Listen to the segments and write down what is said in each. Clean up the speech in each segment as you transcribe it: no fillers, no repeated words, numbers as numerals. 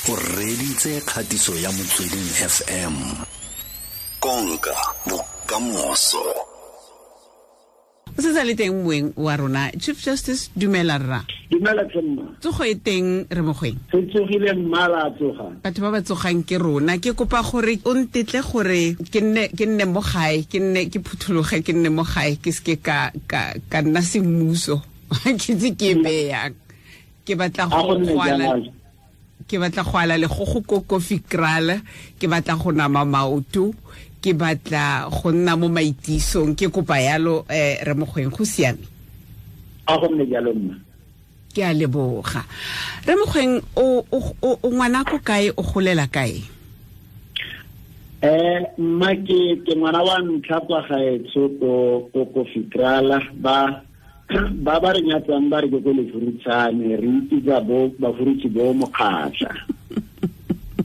O reditse kgatiso ya Motsweding FM. Konka bokamoso. O se sa le teng moeng wa rona, Chief Justice, dumela rra. Dumela tsemma. Tsogo e teng re mogweng. Se tsogile mmala tsoga. Batho ba ba tsogang ke rona. Ke kopa gore o ntetle gore ke nne mo gae, ke nne ke phuthologe, ke nne mo gae, ke seke ka nna semmuso. Ke tse ke beyang. Ke batla go kwala. Ke batla go ala le go go kokofi krala, ke batla go nama maoto, ke batla go nna mo maitisong, ke kopa yalo re mogweng, go siame. A go nne jalo mma. Ke a leboga. Re mogweng, o ngwana ko kae, o golela kae? Mma ke ngwana wa ntlha kwa gaetsho ko Kofikrala, ba re nyatsang ba re ke ko Lefurutshane, re ipitsa bo Bafurutshi bo Mokgatlha.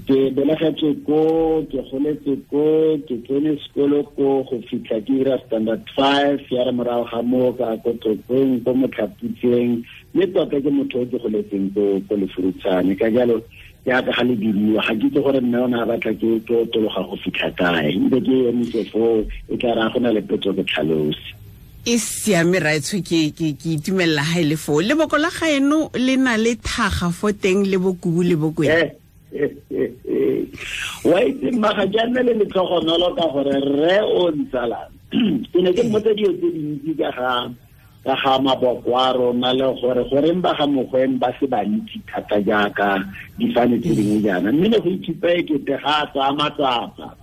Ke belegetswe ko, ke goletse ko, ke tsene sekolo ko go fitlha ke dira standard 5, ya re morago ga moo ka ko Tlokweng, ko Motlhaputseng, mme tota ke motho o ke goletseng ko Lefurutshane. Ka jalo jaaka ga le bidiwa, ga ke itse gore mme o ne a batla ke otologa go fitlha kae, ntse ke emise foo, e tla re a go na le potso ke tlhalose. E siame raetsho, ke itumelela ha e le foo. Leboko la gaeno le na le thaga fo teng le bokubu le bokwena. Wa itse mma, ga ke a nne le letlhogonolo ka gore rre o ntsalang. Ke ne ke mmotsa dilo tse dintsi ka ga maboko a rona le gore goreng ba ga Mogoeng ba se bantsi thata jaaka difane tse dingwe jaana, mme ne go ithupa e kete ga a tsaya matsapa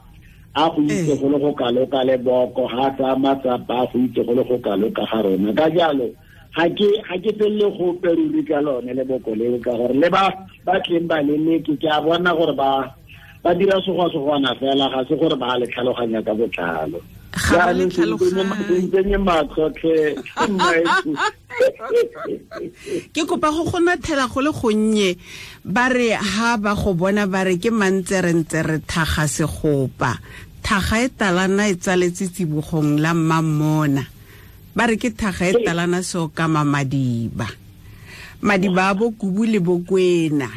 a go itse go le go kalo ka leboko, ga a tsaya matsapa a go itse go le go kalo ka ga rona. Ka jalo ga ke felele gope ruri ka lone leboko leo, ka gore le ba tleng ba leleke, ke a bona gore ba dira segwa-segwana fela, ga se gore ba le tlhaloganya ka botlalo. Ga ba le Jaanong tlhaloganye. se ntsenye matlho tlhe, mmaetsho. Ke kopa go go nathela go le gonnye, ba re ha ba go bona ba re ke mantserentse thaga segopa, thaga e talana e tsaletse tsibogong la mmamona, ba re ke thaga e talana seokama madiba, madiba a bokubu le bokwena.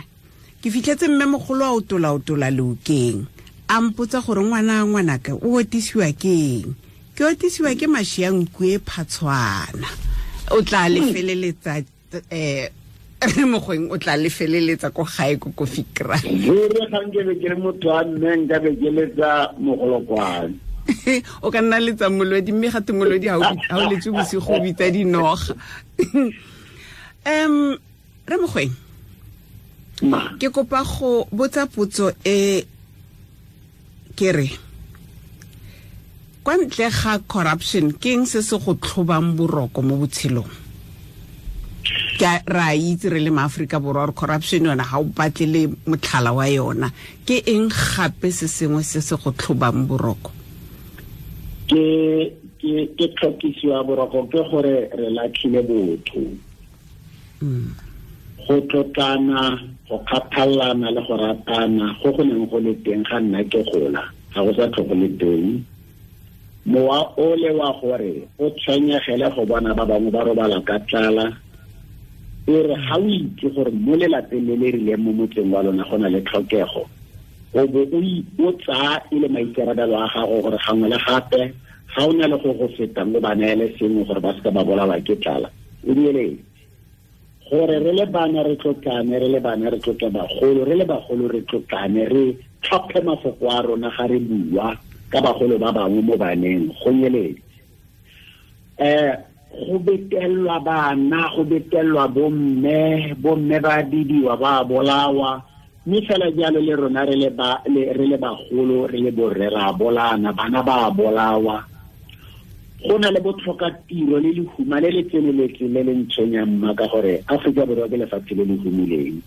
Ke fitlhetse mme mogolo a otola-otola leokeng, a mpotsa gore ngwana ngwanaka o otisiwa ke eng. Ke otisiwa ke mashi a nku e phatshwana. O tla le feleletsa, re mogweng, o tla le feleletsa ko gae ko Kofikra. Ruri ga nke be ke le motho wa mme, nka be ke letsa mogolokwane. O ka nna letsa molodi, mme gape molodi ha o letse bosigo o bitsa dinoga. Re mogweng, Ma. ke kopa go botsa potso e ke re, kwa ntle ga corruption, ke eng se se go tlhobang boroko mo botshelong? Ke ra itse re le maAforika Borwa gore corruption yona ga o batle le motlhala wa yona. Ke eng gape se sengwe se se go tlhobang boroko? Ke tlhokisiwa boroko ke gore re latlhile botho. Go tlotlana, go kgathalana le go ratana go go neng go le teng ga nna ke gola, ga go sa tlho go le teng. Mowa o le wa gore o tshwenyegele go bona ba bangwe ba robala ka tlala, e re ga o itse gore mo lelapeng le le rileng mo motseng wa lona go na le tlhokego, o bo o tsaya e le maikarabelo a gago gore gangwe le gape ga o na le go go fetang o ba neele sengwe gore ba seka ba bolawa ke tlala. O dieletse gore re le bana re tlotlane, re le bana re tlotle bagolo, re le bagolo re tlotlane, re tlhophe mafoko a rona ga re bua ka bagolo ba bangwe mo baneng, go nyeletse. Go betelwa bana, go betelwa bomme, bomme ba bidiwa, ba bolawa, mme fela jalo le rona re le bagolo, re le borre ra bolana, bana ba bolawa. Go na le botlhoka tiro le lehuma le le tseneletseng le le ntshwenyang mma, ka gore Aforika Borwa ke lefatshe le le humileng.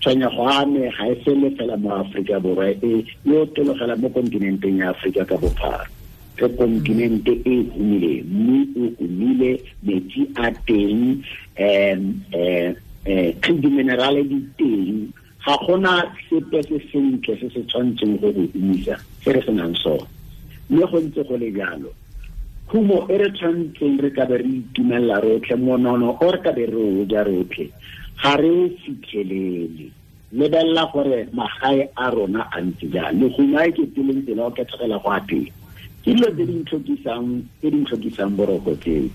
Tshwenyego a me ga e fele fela mo Aforika Borwa, e otologela mo kontinenteng ya Aforika ka bophara. Ke kontinente e humileng, mme o humile, metsi a teng, di-minerale di teng. Ga gona sepe se sentle se se tshwanetseng go go humisa se re senang sone. Mme go ntse go le jalo, khumo e re tshwanetseng re ka be re itumelela rotlhe, monono o re ka be re o ja rotlhe, ga re o fitlhelele. Lebelela gore magae a rona a ntse jang, le gongwe ke tseleng tsela o kethegela go a teng. Ke dilo tse di ntlhokisang boroko tseo.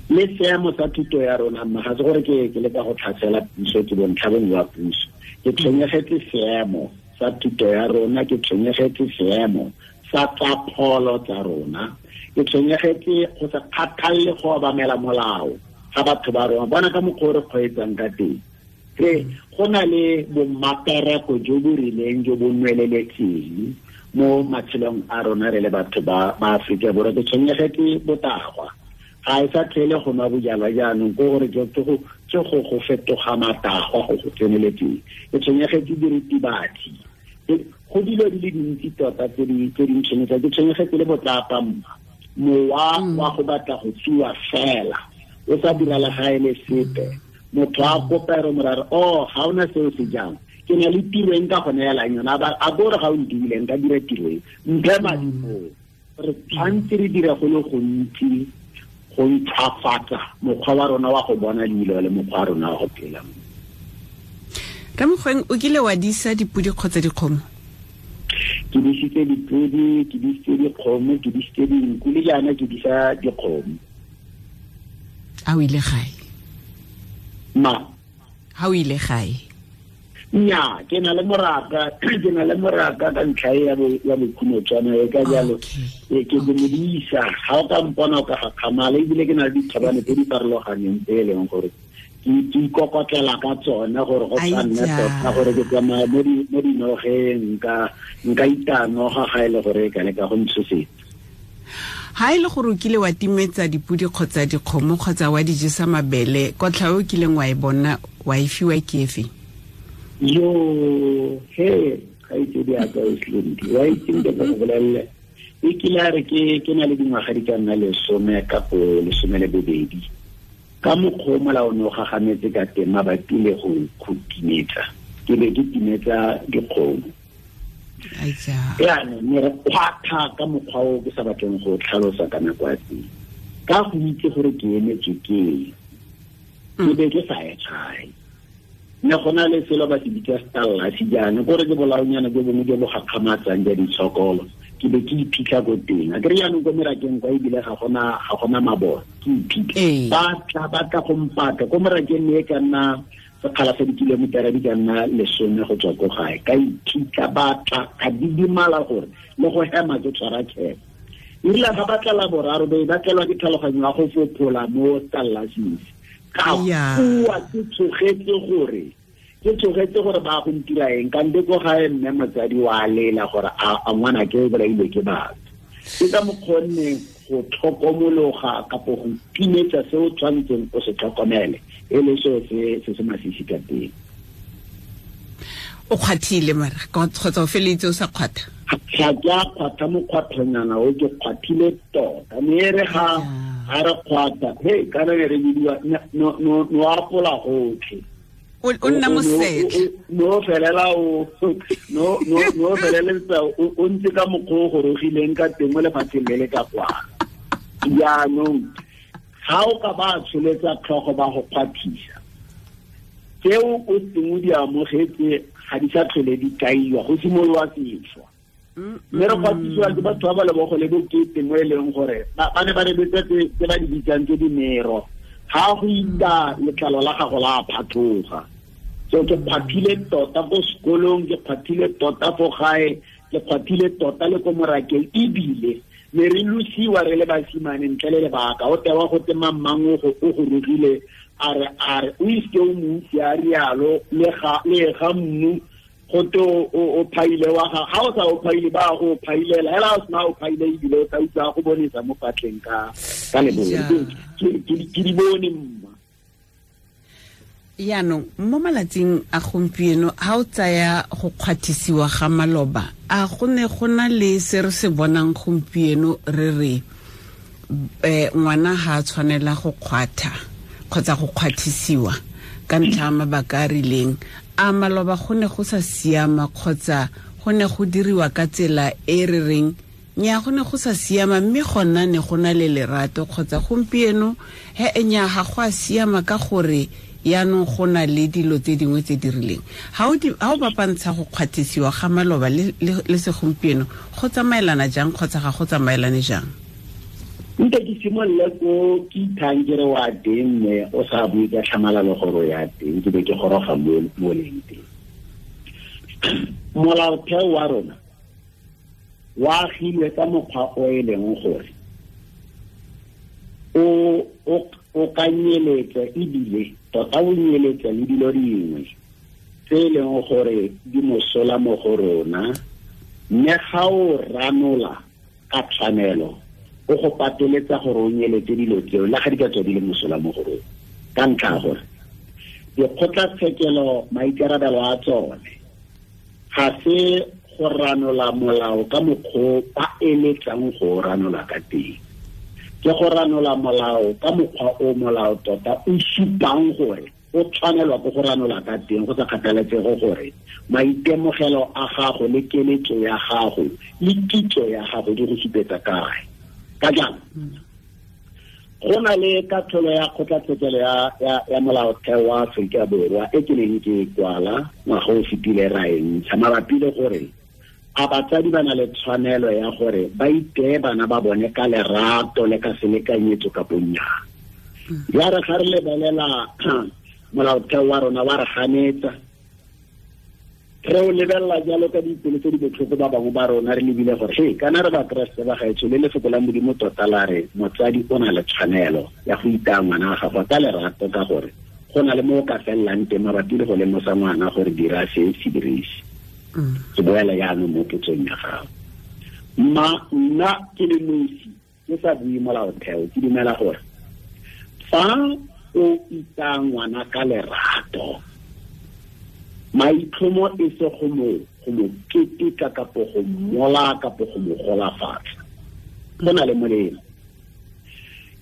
Le seemo sa thuto ya rona, mma, ga se gore ke leka go tlhasela puso, ke bontlha bongwe wa puso. Ke tshwenyegetse seemo sa thuto ya rona, ke tshwenyegetse seemo sa tsa pholo tsa rona, ke tshwenyegetse go sa kgathalle go obamela molao ga batho ba rona. Bona ka mokgwa o re kgweetsang ka teng, re go na le bommapereko jo bo rileng jo bo nweleletseng mo matshelong a rona re le batho ba Aforika Borwa. Ke tshwenyegetse botagwa, ga e sa tlhele go nwa bojalwa jaanong, ke gore ke go fetoga matagwa go go tseneletseng. Ke tshwenyegetse diritibatsi, go dilo di le dintsi tota tse di ntshwenyetsang. Ke tshwenyegetse le botlapa, mma, mowa wa go batla go tsuwa fela o sa dira le ga e le sepe. Motho a kopa re morare, oh, ga ona seo se jang, ke na le tiro e nka go neelang yona, a bore ga o ntiile nka dira tiro e, mphe madi moo. Re tshwanetse re dire go le gontsi go ntšhwafatsa mokgwa wa rona wa go bona dilo le mokgwa wa rona wa go phela. Ramogoeng, o kile wa disa dipodi kgotsa dikgomo? Ke disitse dipodi, ke disitse dikgomo, ke disitse dinku, le jaana ke disa dikgomo. A o ile gae? Ma? Ha o ile gae? Nya, ke na le moraka, ka ntlha ya bokhumotshwana e ka jalo. Ke modisa, ga o ka mpona o ka gakgamala, ebile ke na le dithabane tse di farologaneng tse e leng gore ke ikokotlela ka tsone gore go sa nne tota gore ke tsamaya mo dinogeng, nka itanoga ga e le gore e ka leka go ntshosetsa. Ha e le gore o kile wa timetsa dipodi kgotsa dikgomo kgotsa wa di jesa mabele, kotlha o kileng wa e bona wa e fiwa ke efe? Yo, he, ga itse di aka o slindi. Wa itse ke go bolelle. E kile a re ke na le dingwaga di ka nna 10 kapo 12. Ka mokgwa o molao ne o gagametse ka teng mabapi le go timetsa. Ke be ke timetsa dikgomo. Jaanong ne re kgwatha ka mokgwa o ke sa batleng go tlhalosa ka nako ya teng. Ka go itse gore ke emetswe ke eng, ke be ke sa ye gae. Ne go na le selo ba se bitsa stallasi jaana, kore ke bolaonyana jo bongwe jo bo gakgamatsang ja ditshokolo. Ke be ke iphitlha ko teng. A kere jaanong ko merakeng kwa ebile ga gona mabone, ke iphitlha. Ba tla go mpatla ko morakeng, ne e ka nna sekgala sa dikilometara di ka nna 10 go tswa ko gae. Ka iphitlha, ba tla, ka didimala gore le go hema ke tshwara kgebo. Erile ga ba tla la boraro, be ba tlelwa ke tlhaloganyo ya go fophola mo stallasing. Ka bua ke tshogetse gore ba go ntira eng, kante ko gae mme motsadi wa lela gore a ngwana ke o bolailwe ke batho. Ke ka mokgonne go tlhokomologa kapo go timetsa se o tshwanetseng o se tlhokomele, e le seo se se masisi ka teng. O kgwathile mara kgotsa o feleletse o sa kgwatha? Ga ke a kgwatha mokgwathonyana o, ke kgwathile tota. Mme e re ga re kgwatha, he kana ne re bidiwa no apola gotlhe. O nna mosetlha. No felela o no feleletsa o ntse ka mokgwa o gorogileng ka teng mo lefatsheng le le ka kwa. Jaanong ga o ka ba tsholetsa tlhogo ba go kgwathisa, tseo o seng o di amogetse ga di sa tlhole di kaiwa, go simolola sešwa. Mme re kgwathisiwa ke batho ba ba lebogo le bokete mo e leng gore ba ne ba rebetsa tse ba di bitsang tse dimero. Ga go ita letlalo la gago la phatloga. So ke kgwathile tota ko sekolong, ke kgwathile tota fo gae, ke kgwathile tota le ko morakeng, ebile ne re losiwa re le basimane ntle le lebaka. O tewa go te mang o go rogile, a re o iske o mo utlwe a rialo, le ga mmu go te o phaile wa ga o sa o phaile, ba go phailela hela o sena o phaile, ebile o tla utlwa go bonesa mo patleng ka lebone. Ke di bone mma. Yaanong mo malatsing a gompieno, ha o tsaya go kgwathisiwa ga maloba, a go ne go na le se re se bonang gompieno re re ngwana ha a tshwanela go kgwatha kgotsa go kgwathisiwa ka ntlha ya mabaka a rileng? A maloba go ne go sa siama kgotsa go ne go diriwa ka tsela e re reng nya go ne go sa siama, mme gona ne go na le lerato, kgotsa gompieno he nya ga go a siama ka gore Yaanong go na le dilo tse dingwe tse di rileng. Ha o bapantsha go kgwathisiwa ga maloba le segompieno, go tsamaelana jang kgotsa ga go tsamaelane jang? Nte ke simolole ko ke ithang ke re wa teng, mme o sa bue ka tlhamalalo gore o ya teng, ke be ke goroga mo leng teng. Molaotheo wa rona wa agilwe ka mokgwa o e leng gore o ka nyeletsa, ebile tota o nyeletsa le dilo dingwe tse e leng gore di mosola mo go rona, mme ga o ranola ka tshwanelo o go pateletsa gore o nyeletse dilo tseo le ga di ka tswa di le mosola mo go rona. Ka ntlha ya gore dikgotlatshekelo maikarabelo a tsone ga se go ranola molao ka mokgwa ba eletsang go ranola ka teng, ke go ranola molao ka mokgwa o molao tota o supang gore o tshwanelwa ke go ranola ka teng, go sa kgathaletsege gore maitemogelo a gago le keletso ya gago le kitso ya gago di go supetsa kae. Ka jalo go na le katlholo ya kgotlatshekelo ya molaotheo wa Aforika Borwa e ke neng ke kwala ngwaga o fetile ra e ntsha mabapi le gore a batsadi ba na le tshwanelo ya gore ba iteye bana ba bone ka lerato le ka selekanyetso kapo nnyaa. Ya re ga re lebelela molaotheo wa rona wa re ganetsa, re o lebelela jalo ka dipelo tse di botlhoko ba bangwe ba rona, re lebile gore he kana re bakeresete ba gaetsho le lefoko la Modimo tota la re motsadi o na le tshwanelo ya go itaya ngwana wa gagwe ka lerato, ka gore go na le mo o ka felelang teng mabapi le go lemosa ngwana gore dira se se dirise. Ke boela jaanong mo potsong ya gago. Nna ke le nosi ke sa bue molaotheo, ke dumela gore fa o itaya ngwana ka lerato, maitlhomo e se go mo keteka kapo go mola kapo go mo golafatsa, go na le molemo.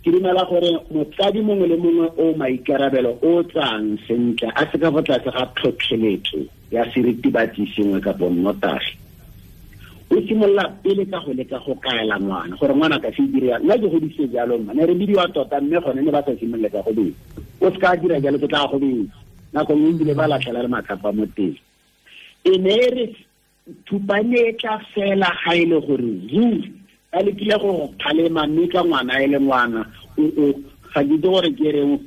Ke dumela gore motsadi mongwe le mongwe o maikarabelo o tsang sentle a se ka fa tlase ga tlhotlheletso ya seritibatsi sengwe kapo nnotagi, o simolola pele ka go leka go kaela ngwana gore ngwana ka se dira. Nna ke godise jalo, mma ne re bidiwa tota, mme gone ne ba sa simolole ka go betsa. O se ka dira jalo, ke tla go betsa. Nako nngwe ebile ba latlhela le matlapa mo teng. E ne e re thupane e tla fela ga e le gore ruri ba lekile go kgalema, mme ka ngwana e le ngwana ga ke itse gore ke reng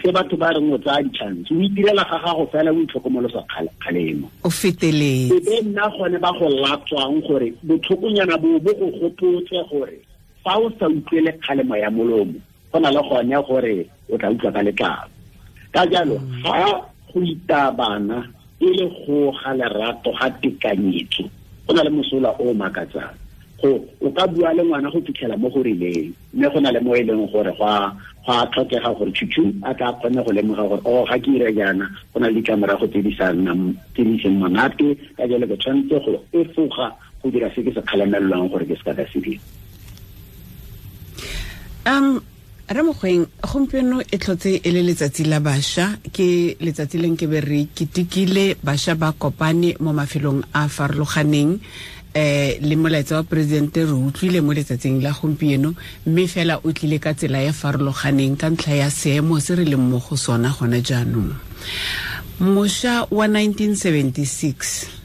se batho ba reng o tsaya di-chance, o itirela ga gago fela o itlhokomolosa kgalemo, o feteletse. E be nna gone ba go latswang gore botlhokonyana bo bo go gopotse gore fa o sa utlwele kgalemo ya molomo, go na le gone gore o tla utlwa ka letlalo. Ka jalo ga go itaya bana e le go ga lerato ga tekanyetso, go na le mosola o makatsang. Go o ka bua le ngwana go fitlhela mo go rileng, mme go na le mo e leng gore go a tlhokega gore tšhutšhu a tla kgone go lemoga gore o ga ke ira jaana, go na le ditlamorago tse di seng monate, ka jalo ke tshwanetse go efoga go dira se ke se kgalemelelwang gore ke se ka ka se dira. Re Mogoeng, gompieno e tlhotse e le letsatsi la bašwa, ke letsatsi le nke be re ketekile bašwa ba kopane mo mafelong a farologaneng, le molaetsa wa presidente re utlwile mo letsatsing la gompieno, mme fela o tlile ka tsela e farologaneng ka ntlha ya seemo se re leng mo go sona gone jaanong. Mošwa wa 1976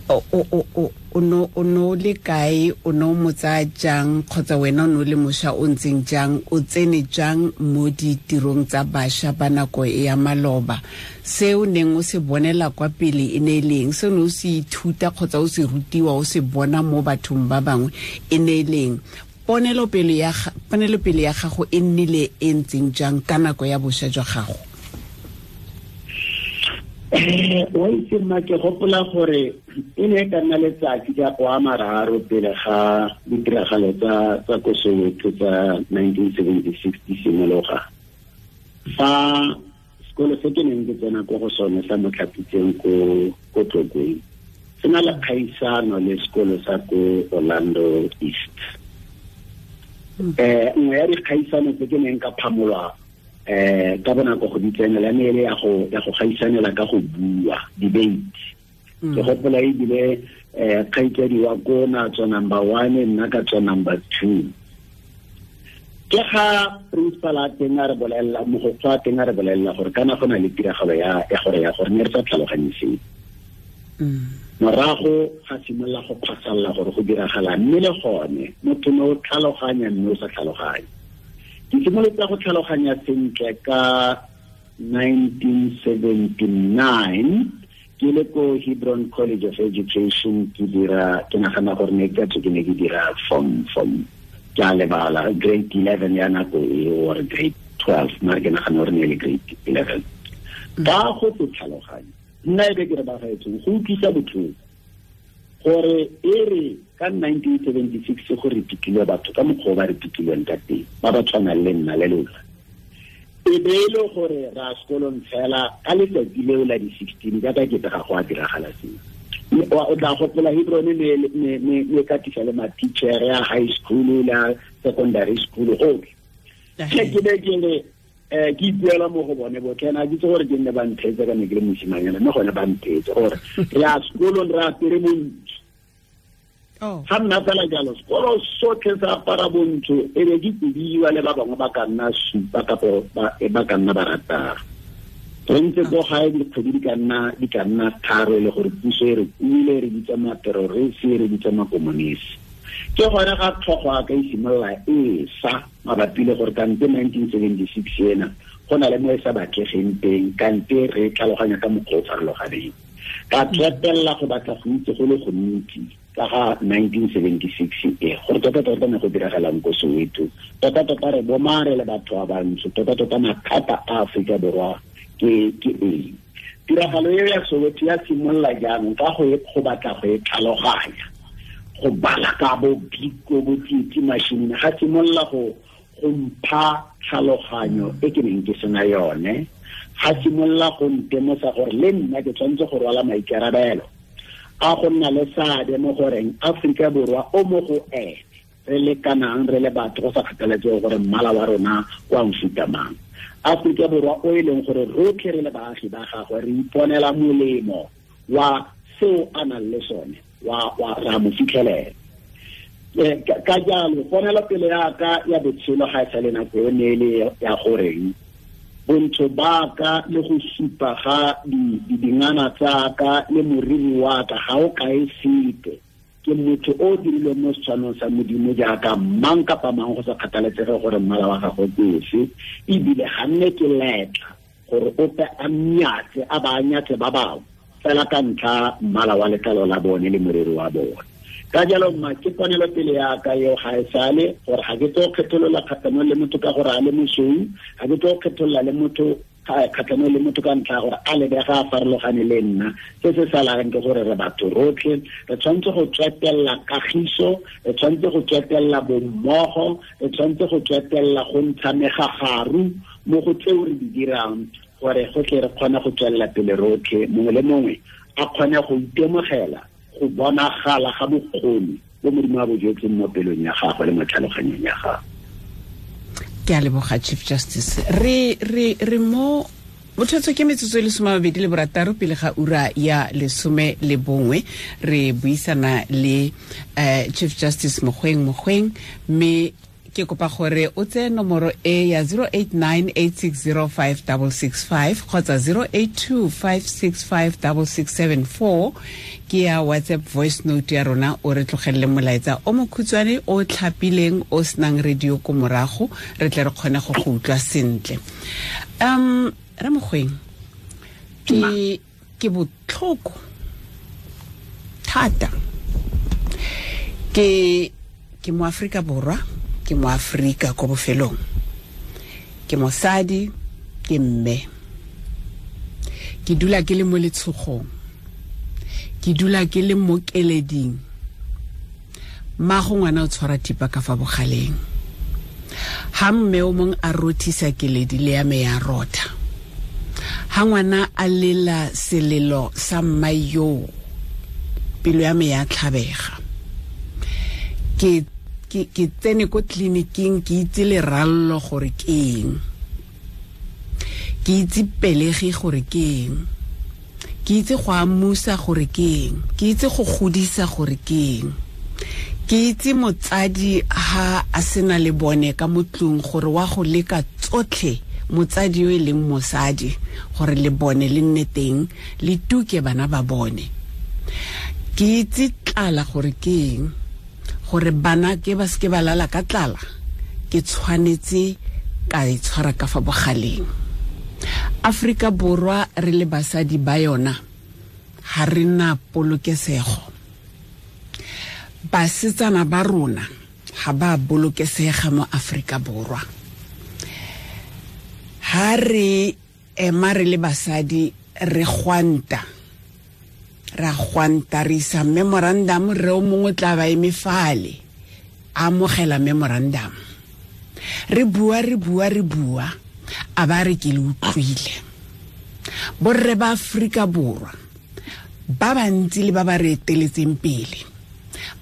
o no le kae, o no mo tsaya jang, kgotsa wena o no le mošwa o ntseng jang, o tsene jang mo ditirong tsa bašwa ba nako e ya maloba? Se o neng o se bonela kwa pele e ne e leng? Se o ne o se ithuta kgotsa o se rutiwa o se bona mo bathong ba bangwe e ne e leng? Ponelopele ya gago e nnile e ntseng jang ka nako ya bošwa jwa gago? Wa itse mma, ke gopola gore e ne e ka nna letsatsi ka go a mararo pele ga ditiragalo tsa ko Soweto tsa 1976 di simologa, fa sekolo se ke neng ke tsena ko go sone sa Motlhapitseng ko Tlokweng se na le kgaisano le sekolo sa ko Orlando East. Nngwe ya dikgaisano tse ke neng ka phamolwa ka bonako go di tsenela ne e le ya go gaisanela ka go bua, debate. Ke gopola ebile kgaitsadi wa ko na tswa number 1, nna ka tswa number 2. Ke ga principal a teng a re bolelela, mogokgo a teng a re bolelela gore kana go na le tiragalo ya gore ya gore ne re sa tlhaloganye seo. Morago ga simolola go phasalla gore go diragala, mme le gone motho ne o tlhaloganya mme o sa tlhaloganye. Ke simolotse go tlhaloganya sentle ka 1979 ke le ko Hebron College of Education, ke dira, ke nagana gore ne ke ke ne ke dira form ke a lebala grade 11 ya nako e or grade 12, mare ke nagana gore ne le grade 11. Ka go se tlhaloganye nna e be ke re bagaetsong go utlwisa botlhoko gore e re ka 1976 go re pitlile batho ka mokgwa o ba re pitlilweng ka teng, ba ba tshwanang le nna le lona, e be e le gore ra sekolong fela ka letsatsi leo la di-16 jaaka ke ga go a diragala seo. O tla gopola Hebron ne katisa le ma-teacher ya high school la secondary school gotlhe. Ke be ke re ke ipuela mo go bone botlhe, na ke itse gore ke nne ba ntheetse ka ne ke le mosimanyana, mme gone ba ntheetse gore re ya sekolong re apere bontsho. Ga nna fela jalo, sekolo sotlhe sa apara bontsho, e be ke kobiwa le ba bangwe ba ka nna supa kapo ba ka nna barataro. Re ntse ko gae dikgwedi di ka nna tharo e le gore puso e re kuile, re bitsa materorisi, re bitsa makomonisi. Ke gone ga tlhogo a ka e simolola e sa mabapi le gore kante 1976 ena go na le mo e sa batlegeng teng, kante re tlhaloganya ka mokgwa o farologaneng. Ka tswetelela go batla go itse go le gontsi ka ga 1976 e gore tota-tota ne go diragalang ko Soweto, tota-tota re bomare le batho ba bantsho, tota-tota mathata a Aforika Borwa ke eng. Tiragalo eo ya Soweto ya simolola jaanong ka go batla go e tlhaloganya, go bala ka bo Biko bo Tsietsi Mashinini, ga simolola go mpha tlhaloganyo e ke neng ke sena yone, ga simolola go ntemosa gore le nna ke tshwanetse go rwala maikarabelo a go nna le seabe mo goreng Aforika Borwa o mo go ene re lekanang re le batho go sa kgathaletsege gore mmala wa rona kwa mofuta mang. Aforika Borwa o e leng gore rotlhe re le baagi ba gagwe re iponela molemo wa seo a nang le sone, wa ra mo fitlhelela. Ka jalo ponelopele ya ka ya botshelo ga e sa le nako e ne e le ya goreng bontsho ba ka le go supa ga dingana tsa ka le moriri wa ka ga o kae sepe. Ke motho o dirilweng mo setshwanong sa Modimo jaaka mang kapa mang go sa kgathaletsege gore mmala wa gagwe ke ofe, ebile ga nne ke letla gore ope a nnyatse a ba nyatse ba bangwe fela ka ntlha mmala wa letlalo la bone le moriri wa bone. Ka jalo mma ke ponelopele ya ka eo ga e sale gore ga ke tlo kgetholola kgatlhanong le motho ka gore a le mosweu, ga ke tlo kgetholola le motho kgatlhanong le motho ka ntlha ya gore a lebega a farologane le nna. Se se salang ke gore re batho rotlhe, re tshwanetse go tswetelela kagiso, re tshwanetse go tswetelela bommogo, re tshwanetse go tswetelela go ntsha megagaru mo go tseo re di dirang gore go tle re kgone go tswelela pele rotlhe, mongwe le mongwe a kgone go itemogela go bonagala ga bokgoni bo Modimo a bo jetseng mo pelong ya gagwe le mo tlhaloganyong ya gagwe. Ke a leboga Chief Justice. Re mo bothotso ke metsotso e le 26 pele ga ura ya 11 re buisana le Chief Justice Mogoeng, mme ke kopa gore o tseye nomoro e ya 0898605665 kgotsa 0825656674 ke ya WhatsApp voice note ya rona, o re tlogelele molaetsa o mokhutshwane o tlhapileng o senang radio ko morago, re tle re kgone go go utlwa sentle. Re Mogoeng, ke botlhoko thata. Ke mo Afrika Borwa, ke mo Afrika ko bofelong, ke mosadi, ke mme, ke dula ke le mo letshogong, ke dula ke le mo keleding. Mmago ngwana o tshwara thipa ka fa bogaleng, ha mme o mong a rothisa keledi le ya me ya rotha, ha ngwana a lela selelo sa mma yo, pelo ya me ya tlhabega. Ke tsene ko tleliniking, ke itse lerallo gore ke eng, ke itse pelegi gore ke eng, ke itse go amusa gore ke eng, ke itse go godisa gore ke eng, Ke itse motsadi ha a sena le bone ka motlung gore wa go leka tsotlhe motsadi yo e leng mosadi gore le bone le nne teng le tuke bana ba bone. Ke itse tlala gore ke eng, gore bana ke ba seke ba lala ka tlala, ke tshwanetse ka e tshwara ka fa bogaleng. Afrika Borwa re le basadi ba yona ha re na polokesego. Basetsana ba rona ha ba bolokesega mo Afrika Borwa. Ha re ema re le basadi re gwanta, ra gwanta re isa memorandum, re o mongwe tla ba eme fale a amogela memorandum. Re bua, re bua, re bua, a ba re ke le utlwile. Borre ba Afrika Borwa ba bantsi le ba ba re eteletseng pele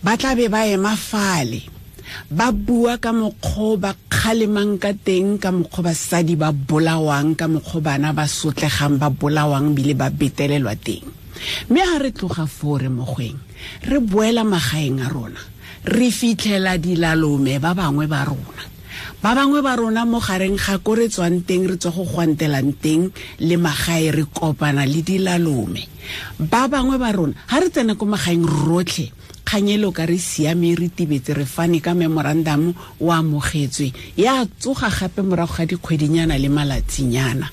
ba tla be ba ema fale ba bua ka mokgwa ba kgalemang ka teng, ka mokgwa basadi ba bolawang, ka mokgwa bana ba sotlegang ba bolawang bile ba betelelwa teng. Mme ha re tloga foo re mogweng, re boela magaeng a rona, re fitlhela dilalome ba bangwe ba rona. Ba bangwe ba rona mo gareng ga ko re tswang teng, re tswa go gwantelang teng le magae, re kopana le dilalome. Ba bangwe ba rona ha re tsena ko magaeng rotlhe, kganyelo ka re siame, re tibetse, re fane ka memorandum o amogetswe, ya tsoga gape morago ga dikgwedinyana le malatsinyana.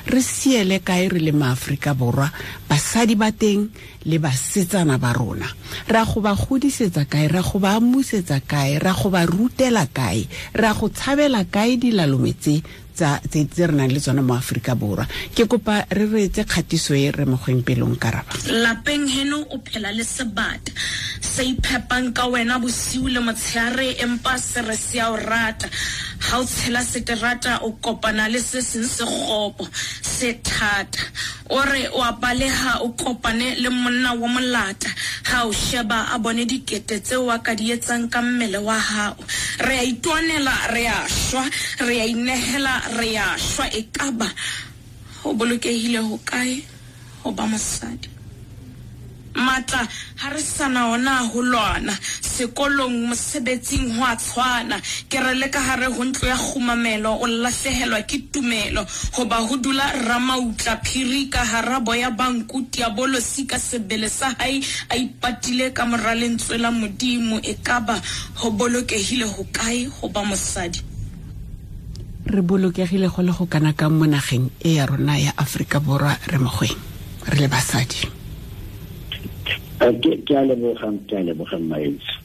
Re siele kae re le maAforika Borwa, basadi ba teng le basetsana ba rona? Ra go ba godisetsa kae, ra go ba amusetsa kae, ra go ba rutela kae, ra go tshabela kae dilalome tse tse re nang le tsona mo Afrika Borwa? Ke kopa re reetse kgatiso e re mogweng pelong karaba. Lapeng heno o phela le sebata se iphepang ka wena bosiu le motshehare, empa se re se a o rata. Ha o tshela seterata o kopana le se seng se kgopo se thata. O re o a baleha o kopane le monna wa molata, ha o sheba a bone dikete tseo a ka di etsang ka mmele wa hao. Re a itwanela, re a shwa, re a inehela, re a shwa. Ekaba ho bolokehile ho kae ho ba mosadi? Matla ha re sana ona ho lwana, sekolong, mosebetsing ho a tshwana. Ke re le ka hare ho ntlo ya kgumamelo o lahlehelwa ke tumelo, hoba ho dula ramautla phiri ka hara boya ba nku, diabolosi ka sebele sa hae a ipatile ka mora lentswe la Modimo. Ekaba ho bolokehile ho kae ho ba mosadi? Re bolokegile go le go kana kang mo nageng e ya rona ya Afrika Borwa re mogweng re le basadi? Ke a leboga Mmaetso.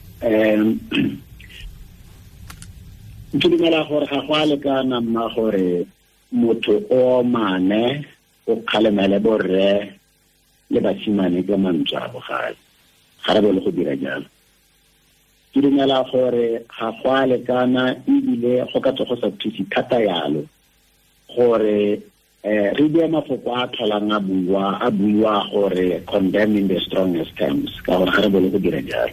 Ke dumela gore ga go a lekana mma gore motho o mane o kgalemele borre le basimane ka mantswe a bogale. Ga re bone go dira jalo. Ke dumela gore ga go a lekana ebile go ka tswa go sa thuse thata yalo gore re bue mafoko a tlholang a buiwa gore condemn in the strongest terms, ka gore ga re bone go dira jalo.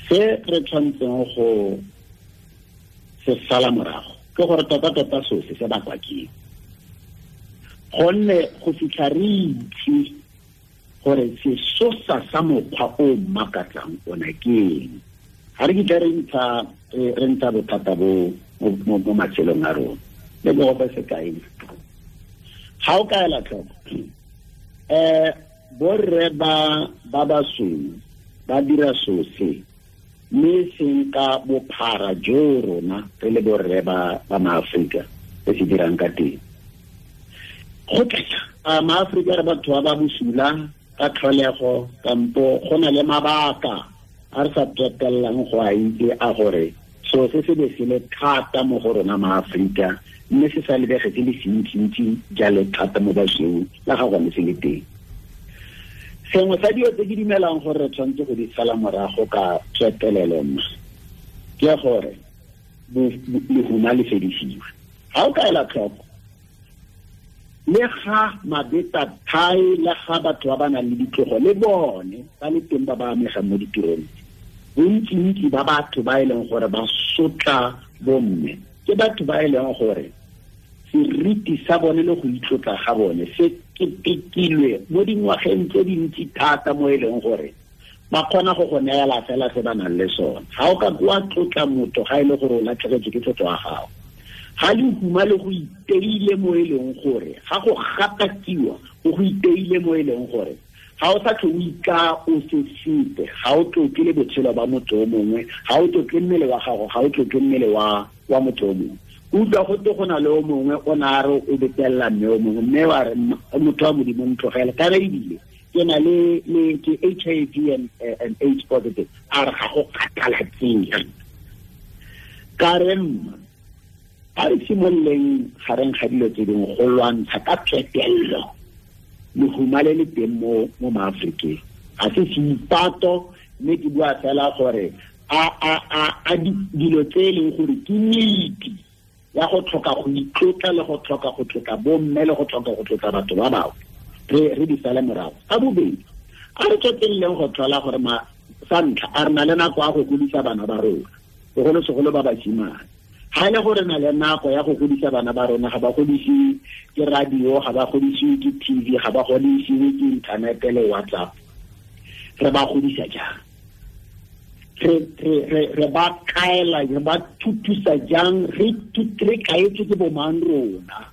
Se re tshwanetseng go se sala morago ke gore tota-tota sose se bakwa ke eng, gonne go fitlha re itse gore sesosa sa mokgwa o makatsang ona ke eng, ga re kitla re ntsha bothata bo mo matshelong a rona. Le go fa sekai, ga o ka ela tlhoko, borre ba basweu ba dira sose mme seng ka bophara jo rona re le borre ba maAforika re se dirang ka teng. Go tla a maAforika re batho ba ba bosula ka tlholego, kampo go na le mabaka a re sa tswetellang go a itse a gore so se se be se le thata mo go rona maAforika, mme se sa lebege se le sentsi-ntsi jalo thata mo basweu la ga gone se le teng. Sengwe sa dilo tse ke dumelang gore re tshwanetse go di sala morago ka tswetelelo mma ke gore lehuma le fedisiwe. Ga o ka ela tlhoko, le ga mabeta thai, le ga batho ba ba nang le ditlogo le bone ba le teng ba ba amegang mo ditirong, bontsi-ntsi ba batho ba e leng gore ba sotla bomme ke batho ba e leng gore seriti sa bone le go itlotla ga bone se ketekilwe mo dingwageng tse dintsi thata mo e leng gore Ba kgona go go neela fela se ba nang le sone. Ga o ka wa tlotla motho ga e le gore o latlhegetswe ke tlotlo ya gago. Ga lehuma le go iteile mo e leng gore ga go gatakiwa go go iteile mo e leng gore ga o sa tlho o ika o se sepe, ga o tlotle le botshelo ba motho o mongwe, ga o tlotle mmele wa gago, ga o tlotle mmele wa motho o mongwe. Utlwa go te go na le o mongwe o ne a re o betelela mme o mongwe, mme wa re motho wa Modimo ntlogele, kana ebile ke na le ke HIV and AIDS positive, a re ga go kgathalatsege. Ka re mma, a re simololeng gareng ga dilo tse dingwe go lwantsha ka phetelelo lehuma le le teng mo maAforikeng. Ga se seipato, mme ke bua fela gore a dilo tse e leng gore ke nnete ya go tlhoka go itlotla le go tlhoka go tlotla bomme le go tlhoka go tlotla batho ba bangwe, re di sale morago. Ka bobedi, a re tsweleleng go tlhola gore sa ntlha a re na le nako ya go godisa bana ba rona, bogolosegolo ba basimane. Ga e le gore na le nako ya go godisa bana ba rona, ga ba godisiwe ke radio, ga ba godisiwe ke TV, ga ba godisiwe ke inthanete le WhatsApp, re ba godisa jang? Re ba kaela, re ba thutusa jang? Re kaetswe ke bomang rona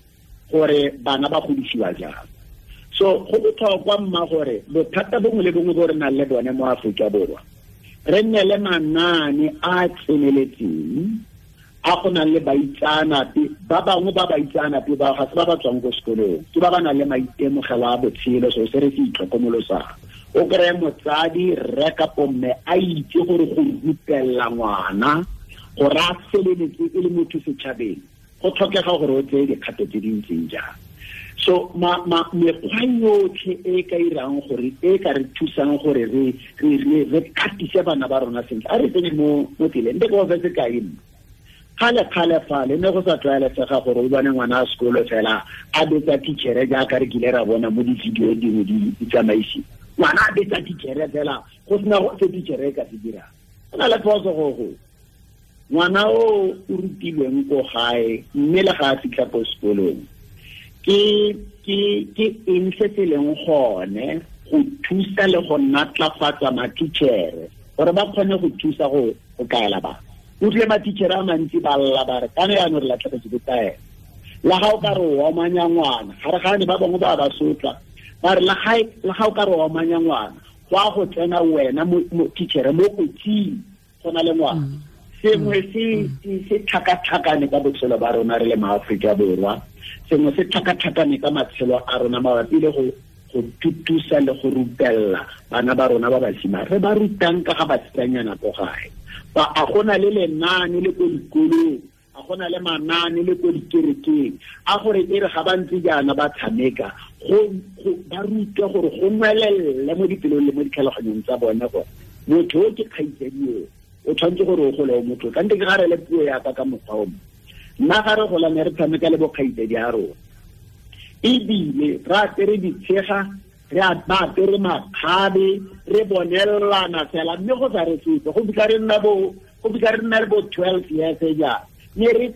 gore bana ba godisiwa jang? So go botlhokwa mma gore bothata bongwe le bongwe bo re nang le bone mo Aforika Borwa, re nne le manaane a tseneletseng a go nang le baitseanape ba bangwe, ba baitseanape ba ga se ba ba tswang ko sekolong, ke ba ba nang le maitemogelo a botshelo, so se re se itlhokomolosang. O kry-e motsadi, rre kapo mme, a itse gore go rutelela ngwana gore a feleletse e le motho setšhabeng, go tlhokega gore o tseye dikgato tse di ntseng jang. So mekgwa yotlhe e ka irang gore e ka re thusang gore re katise bana ba rona sentle, a re tsene mo tseleng. Nte ke go fe sekai mma. Kgale-kgale fale ne go sa tlwaelesega gore o bone ngwana a sekolo fela a betsa teachere jaaka re kile ra bona mo di-video dingwe di tsamaisiwa. Ngwana a betsa teachere fela go sena se teachere e ka se dirang. Go na le phoso go ngwana o rutilweng ko gae mme le ga a fitlha ko sekolong, ke eng se se leng gone go thusa le go natlafatsa ma-teachere gore ba kgone go thusa go kaela bana. Utlwe ma-teachere a mantsi ba lla ba re kana yaanong re latlhegetswe ke taelo. La ga o ka re o omanya ngwana, ga re gane ba bangwe ba ba sotla, ba re la ga o ka re o omanya ngwana, go a go tsena wena mo teachere mo kotsing go na le ngwana. Sengwe se tlhakatlhakane ka botshelo ba rona re le maAforika Borwa, sengwe se tlhakatlhakane ka matshelo a rona mabapi le go thutusa le go rutelela bana ba rona ba basimane. Re ba rutang ka ga basetsanyana ko gae, ba a gona le lenaane le ko dikolong, a gona le manaane le ko dikerekeng, a gore e re ga ba ntse jaana ba tshameka, go ba rutwe gore go nwelelle mo dipelong le mo ditlhaloganyong tsa bone gore motho o ke kgaitsadi o tshwanetse gore o gole o motho. Ka nte ke ga re le puo yaka ka mokgwa o mongwe, nna ga re gola ne re tshameka le bokgaitsadi a rona, ebile re apere ditshega, re ba apere makgabe, re bonelelana fela, mme go sa re sepe go fitlha re nna le bo 12 years jaana, ne re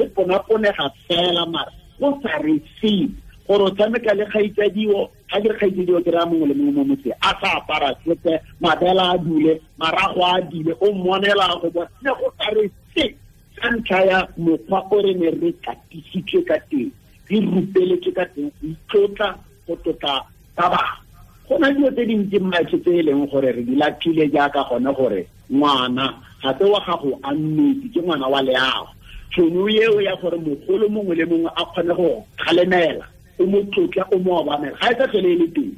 ponaponega fela, mara go sa re sepe gore o tshameka le kgaitsadiwo. Ga ke re kgaitsadiwo ke raya mongwe le mongwe mo motseng a sa apara sepe, mabela a dule, marago a dule, o mmonela go bona, ne go sa re sepe ka ntlha ya mokgwa o re ne re katisitswe ka teng, re rupeletswe ka teng go itlotla, go tlotla ba bangwe. Go na dilo tse dintsi mmaetsho tse e leng gore re di latlhile jaaka gone gore ngwana ga se wa gago a nnete, ke ngwana wa leago. Tšhono eo ya gore mogolo mongwe le mongwe a kgone go kgalemela, o mo tlotla, o mo obamela, ga e sa tlhole e le teng.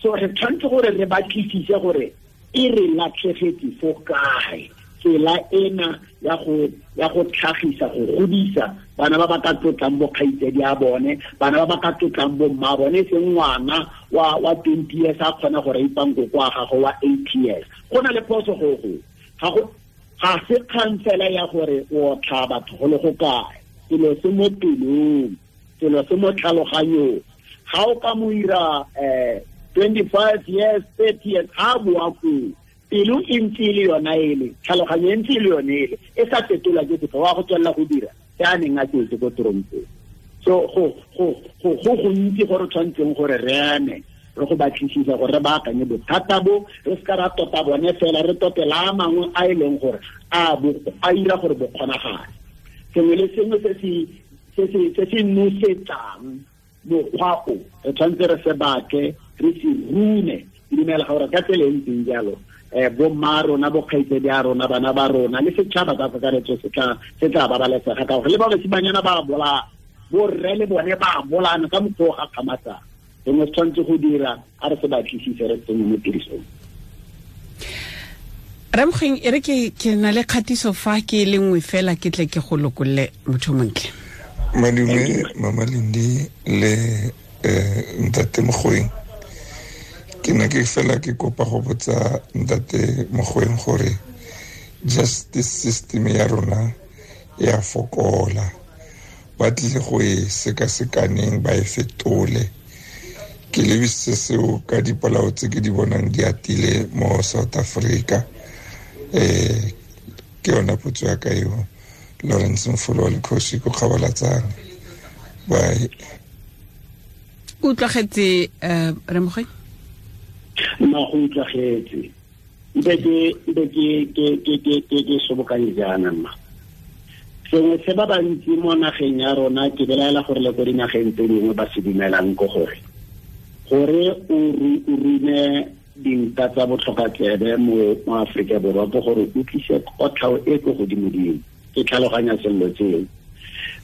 So re tshwanetse gore re batlisise gore e re latlhegetse fo kae tsela ena ya go tlhagisa, go godisa bana ba ba ka tlotlang bo kgaitsadi a bone, bana ba ba ka tlotlang bo mma bone, e seng ngwana wa 20 years a kgona go raipang koko wa gagwe wa 8 years. Go na le phoso go ga se kgang fela ya gore o otla batho go le go kae, selo se mo pelong, selo se mo tlhaloganyong. Ga o ka mo ira 25 years, 30 years, ga a boa koo, pelo e ntse e le yona ele, tlhaloganyo e ntse e le yone ele, e sa fetolwa ke sepe, wa go tswelela go dira se a neng a tsetse ko torompong. So go gontsi gore tshwanetseng gore re eme re go batlisisa gore re baakanye bothata bo, re se ka ra tota bone fela, re totela a mangwe a e leng gore a ira gore bo kgonagale. Sengwe le sengwe se se nosetsang mokgwa o, re tshwanetse re se batle, re se rune. Ke dumela gore ka tsela e ntseng jalo, bomma rona, bokgaitsedi a rona, bana ba rona le setšhaba ka kakaretso se tla babalesega, ka gore le ba basimanyana ba bolaya, borre le bone ba bolana ka mokgwa o gakgamatsang. Sengwe se tshwanetse go dira, a re se batlisise, re tsenye mo tirisong. Ramogeng, e re ke na le kgatiso fa ke le nngwe fela, ke tle ke go lokolle motho montle. Madume, Mama Lindi le Ntate Mogoeng. Ke ne ke fela ke kopa go botsa Ntate Mogoeng gore justice system ya rona ya fokola, ba tlile go e sekasekaneng, ba e fetole. Ke lebisitse seo ka dipolao tse ke di bonang di atile mo South Africa. Ke yona potso ya ka eo. Lawrence Mfolo wa Lekgosi ko Kgabalatsane. Bye. Utlwagetse, Remogoeng? Nna go utlwagetse. Mpe ke sobokanye jaana mma. Sengwe se ba bantsi mo nageng ya rona, ke belaela gore le ko dinageng tse dingwe ba se dumelang ke gore o rume dinta tsa botlhokatsebe mo Aforika Borwa ke gore o tlise kotlhao e ko godimodimo. Ke tlhaloganya sello tseo.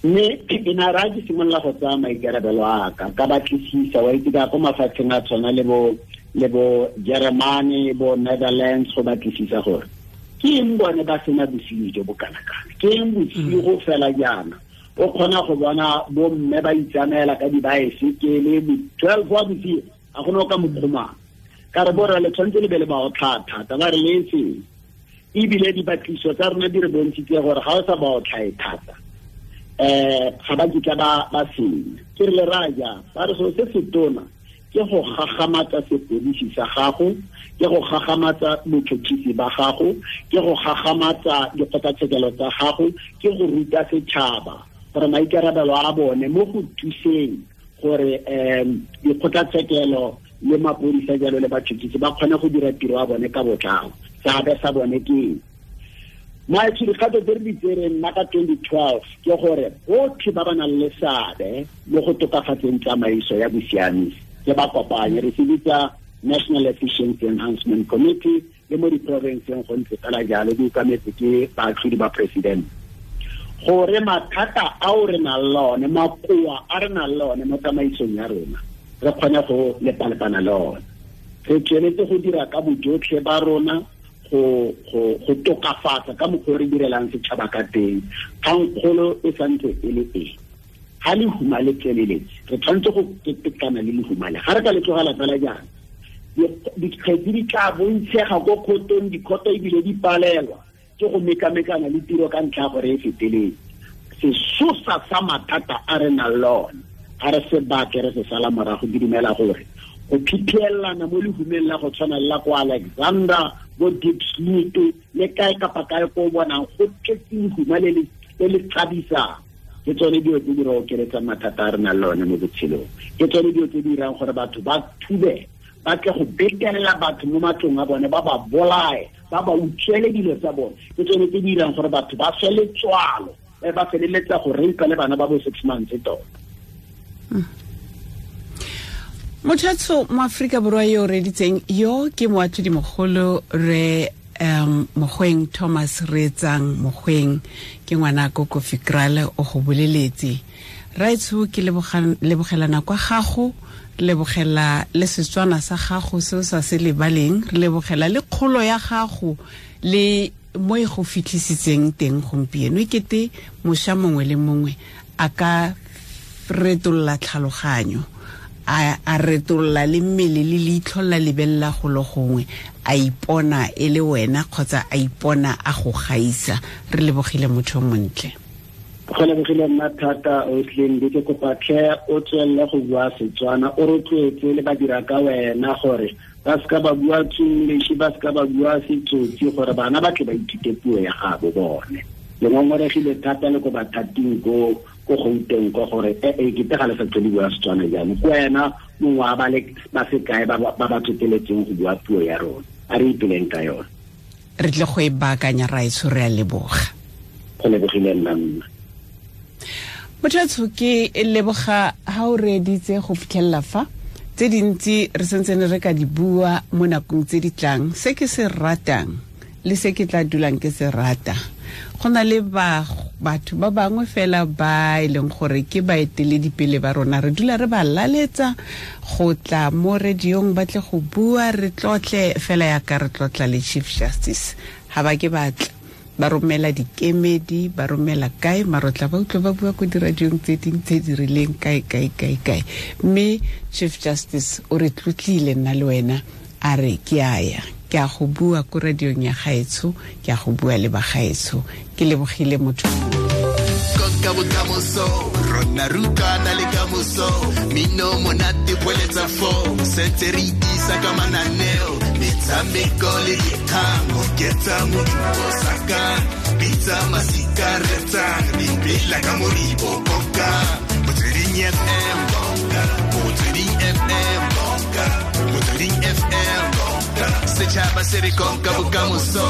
Mme ke na ra ke simolola go tsaya maikarabelo a ka, ka batlisisa, wa itse ka ko mafatsheng a tshwana le bo Germany, bo Netherlands, go batlisisa gore ke eng bone ba sena bosenyi jo bo kana-kana, ke eng bosigo fela jaana o kgona go bona bomme ba itsamaela ka dibaesekele 12 wa bosigo, a gone o ka mokgomang. Ka re borra le tshwanetse le be le ba otlhaa thata, ba re le eseng. Ebile dibatliso tsa rona di re bontshitse gore ga o sa ba otlhae thata, ga ba kitla ba senya. Ke re le raya jang? Ba re selo se se tona ke go gagamatsa sepodisi sa gago, ke go gagamatsa botšhotšhisi ba gago, ke go gagamatsa dikgotlatshekelo tsa gago, ke go ruta setšhaba gore maikarabelo a bone mo go thuseng gore dikgotlatshekelo le mapodisa jalo le batšhotšhisi ba kgone go dira tiro ya bone ka botlalo. Seabe sa bone ke eng? Maetsho, dikgato tse re di tsereng nna ka 2012 ke gore botlhe ba ba nang le seabe mo go tokafatseng tsamaiso ya bosiamisi ke ba kopanye, re se bitsa National Efficiency Enhancement Committee, le mo diporofenseng go ntse fela jalo, di okametse ke baatlhodi ba president. Gore mathata ao re nang le one, makoa a re nang le one mo tsamaisong ya rona, re kgone go lepalepana le one. Re tsweletse go dira ka bojotlhe ba rona go tokafatsa ka mokgwa o re direlang setšhaba ka teng. Kgangkgolo e santse e le e, ga lehuma le tsweleletse, re tshwanetse go ketekana le lehuma le. Ga re ka le tlogela fela jaana, dikgetse di tla bontshega ko kgotong, dikgoto ebile di palelwa ke go mekamekana le tiro ka ntlha ya gore e feteletse. Sesosa sa mathata a re nang le one, ga re se batle, re se sala morago. Ke dumela gore go phiphielana mo lehumeng la go tshwana le la ko Alexander, bo Diepsloot le kae kapa kae ko o bonang go tletse lehuma le le tshabisang, ke tsone dilo tse di re okeletsang mathata a re nang le one mo botshelong. Ke tsone dilo tse di dirang gore batho ba thube, ba tle go betelela batho mo matlong a bone, ba ba bolae, ba ba utswele dilo tsa bone. Ke tsone tse di dirang gore batho ba swe letswalo, ba feleletsa go reipa le bana ba bo 6 months tota. Mothatso mo Aforika Borwa yo o reditseng yo ke moatlhodi mogolo re Mogoeng Thomas Reetsang Mogoeng, ke ngwana ko Kofi Krale, o go boleletse. Raetsho, ke lebogelana kwa gago, lebogela le Setswana sa gago se o sa se lebaleng, re lebogela le kgolo ya gago le mo e go fitlhisitseng teng gompieno. E kete mošwa mongwe le mongwe a ka retolla tlhaloganyo, a retolla le mmele le leitlho la lebelela go le gongwe, a ipona e le wena kgotsa a ipona a go gaisa. Re lebogile motho montle. Go lebogile nna thata, Oslin. Ke kopa tlhe o tswelele go bua Setswana, o rotloetse le badira ka wena gore ba seka ba bua English, ba seka ba bua Setsotsi, gore bana ba tle ba ithute puo ya gabo bone. Le ngongoregile thata le ko bathating ko Ko Gauteng ko gore e ke tega le sa tlhole bua Setswana jaanong ko wena mongwe wa ba le ba sekae ba ba tshoteletseng go bua puo ya rona, a re ipeleng ka yone. Re tle go e baakanya, raetsho, re a leboga. Go lebogile nna mma. Motho ke leboga ha o reeditse go fitlhelela fa tse dintsi re sentse re ka di bua mo nakong tse di tlang. Se ke se ratang le se ke tla dulang ke se rata, go na le batho ba bangwe fela ba e leng gore ke baeteledipele ba rona, re dula re ba laletsa go tla mo radiong ba tle go bua, re tlotle fela yaka re tlotla le Chief Justice. Ha ba ke batla ba romela dikemedi, ba romela kae, marotla ba utlwe ba bua ko diradiong tse ding tse di rileng kae kae kae kae. Mme Chief Justice o re tlotlile nna le wena, a re ke a ya, ke a go bua ko radiong ya gaetsho, ke a go bua le ba gaetsho. Ke lebogile motho. Konka bokamoso, rona rutana le kamoso, mino monate boeletsa fo, sentse re itisa ka mananeo, metshameko le dikgang, oketsa modumo saka, bitsa masika retsang, dipela ka moribo konka, Motsweding FM konka, Motsweding FM konka, Motsweding FM konka, setšhaba se re konka bokamoso.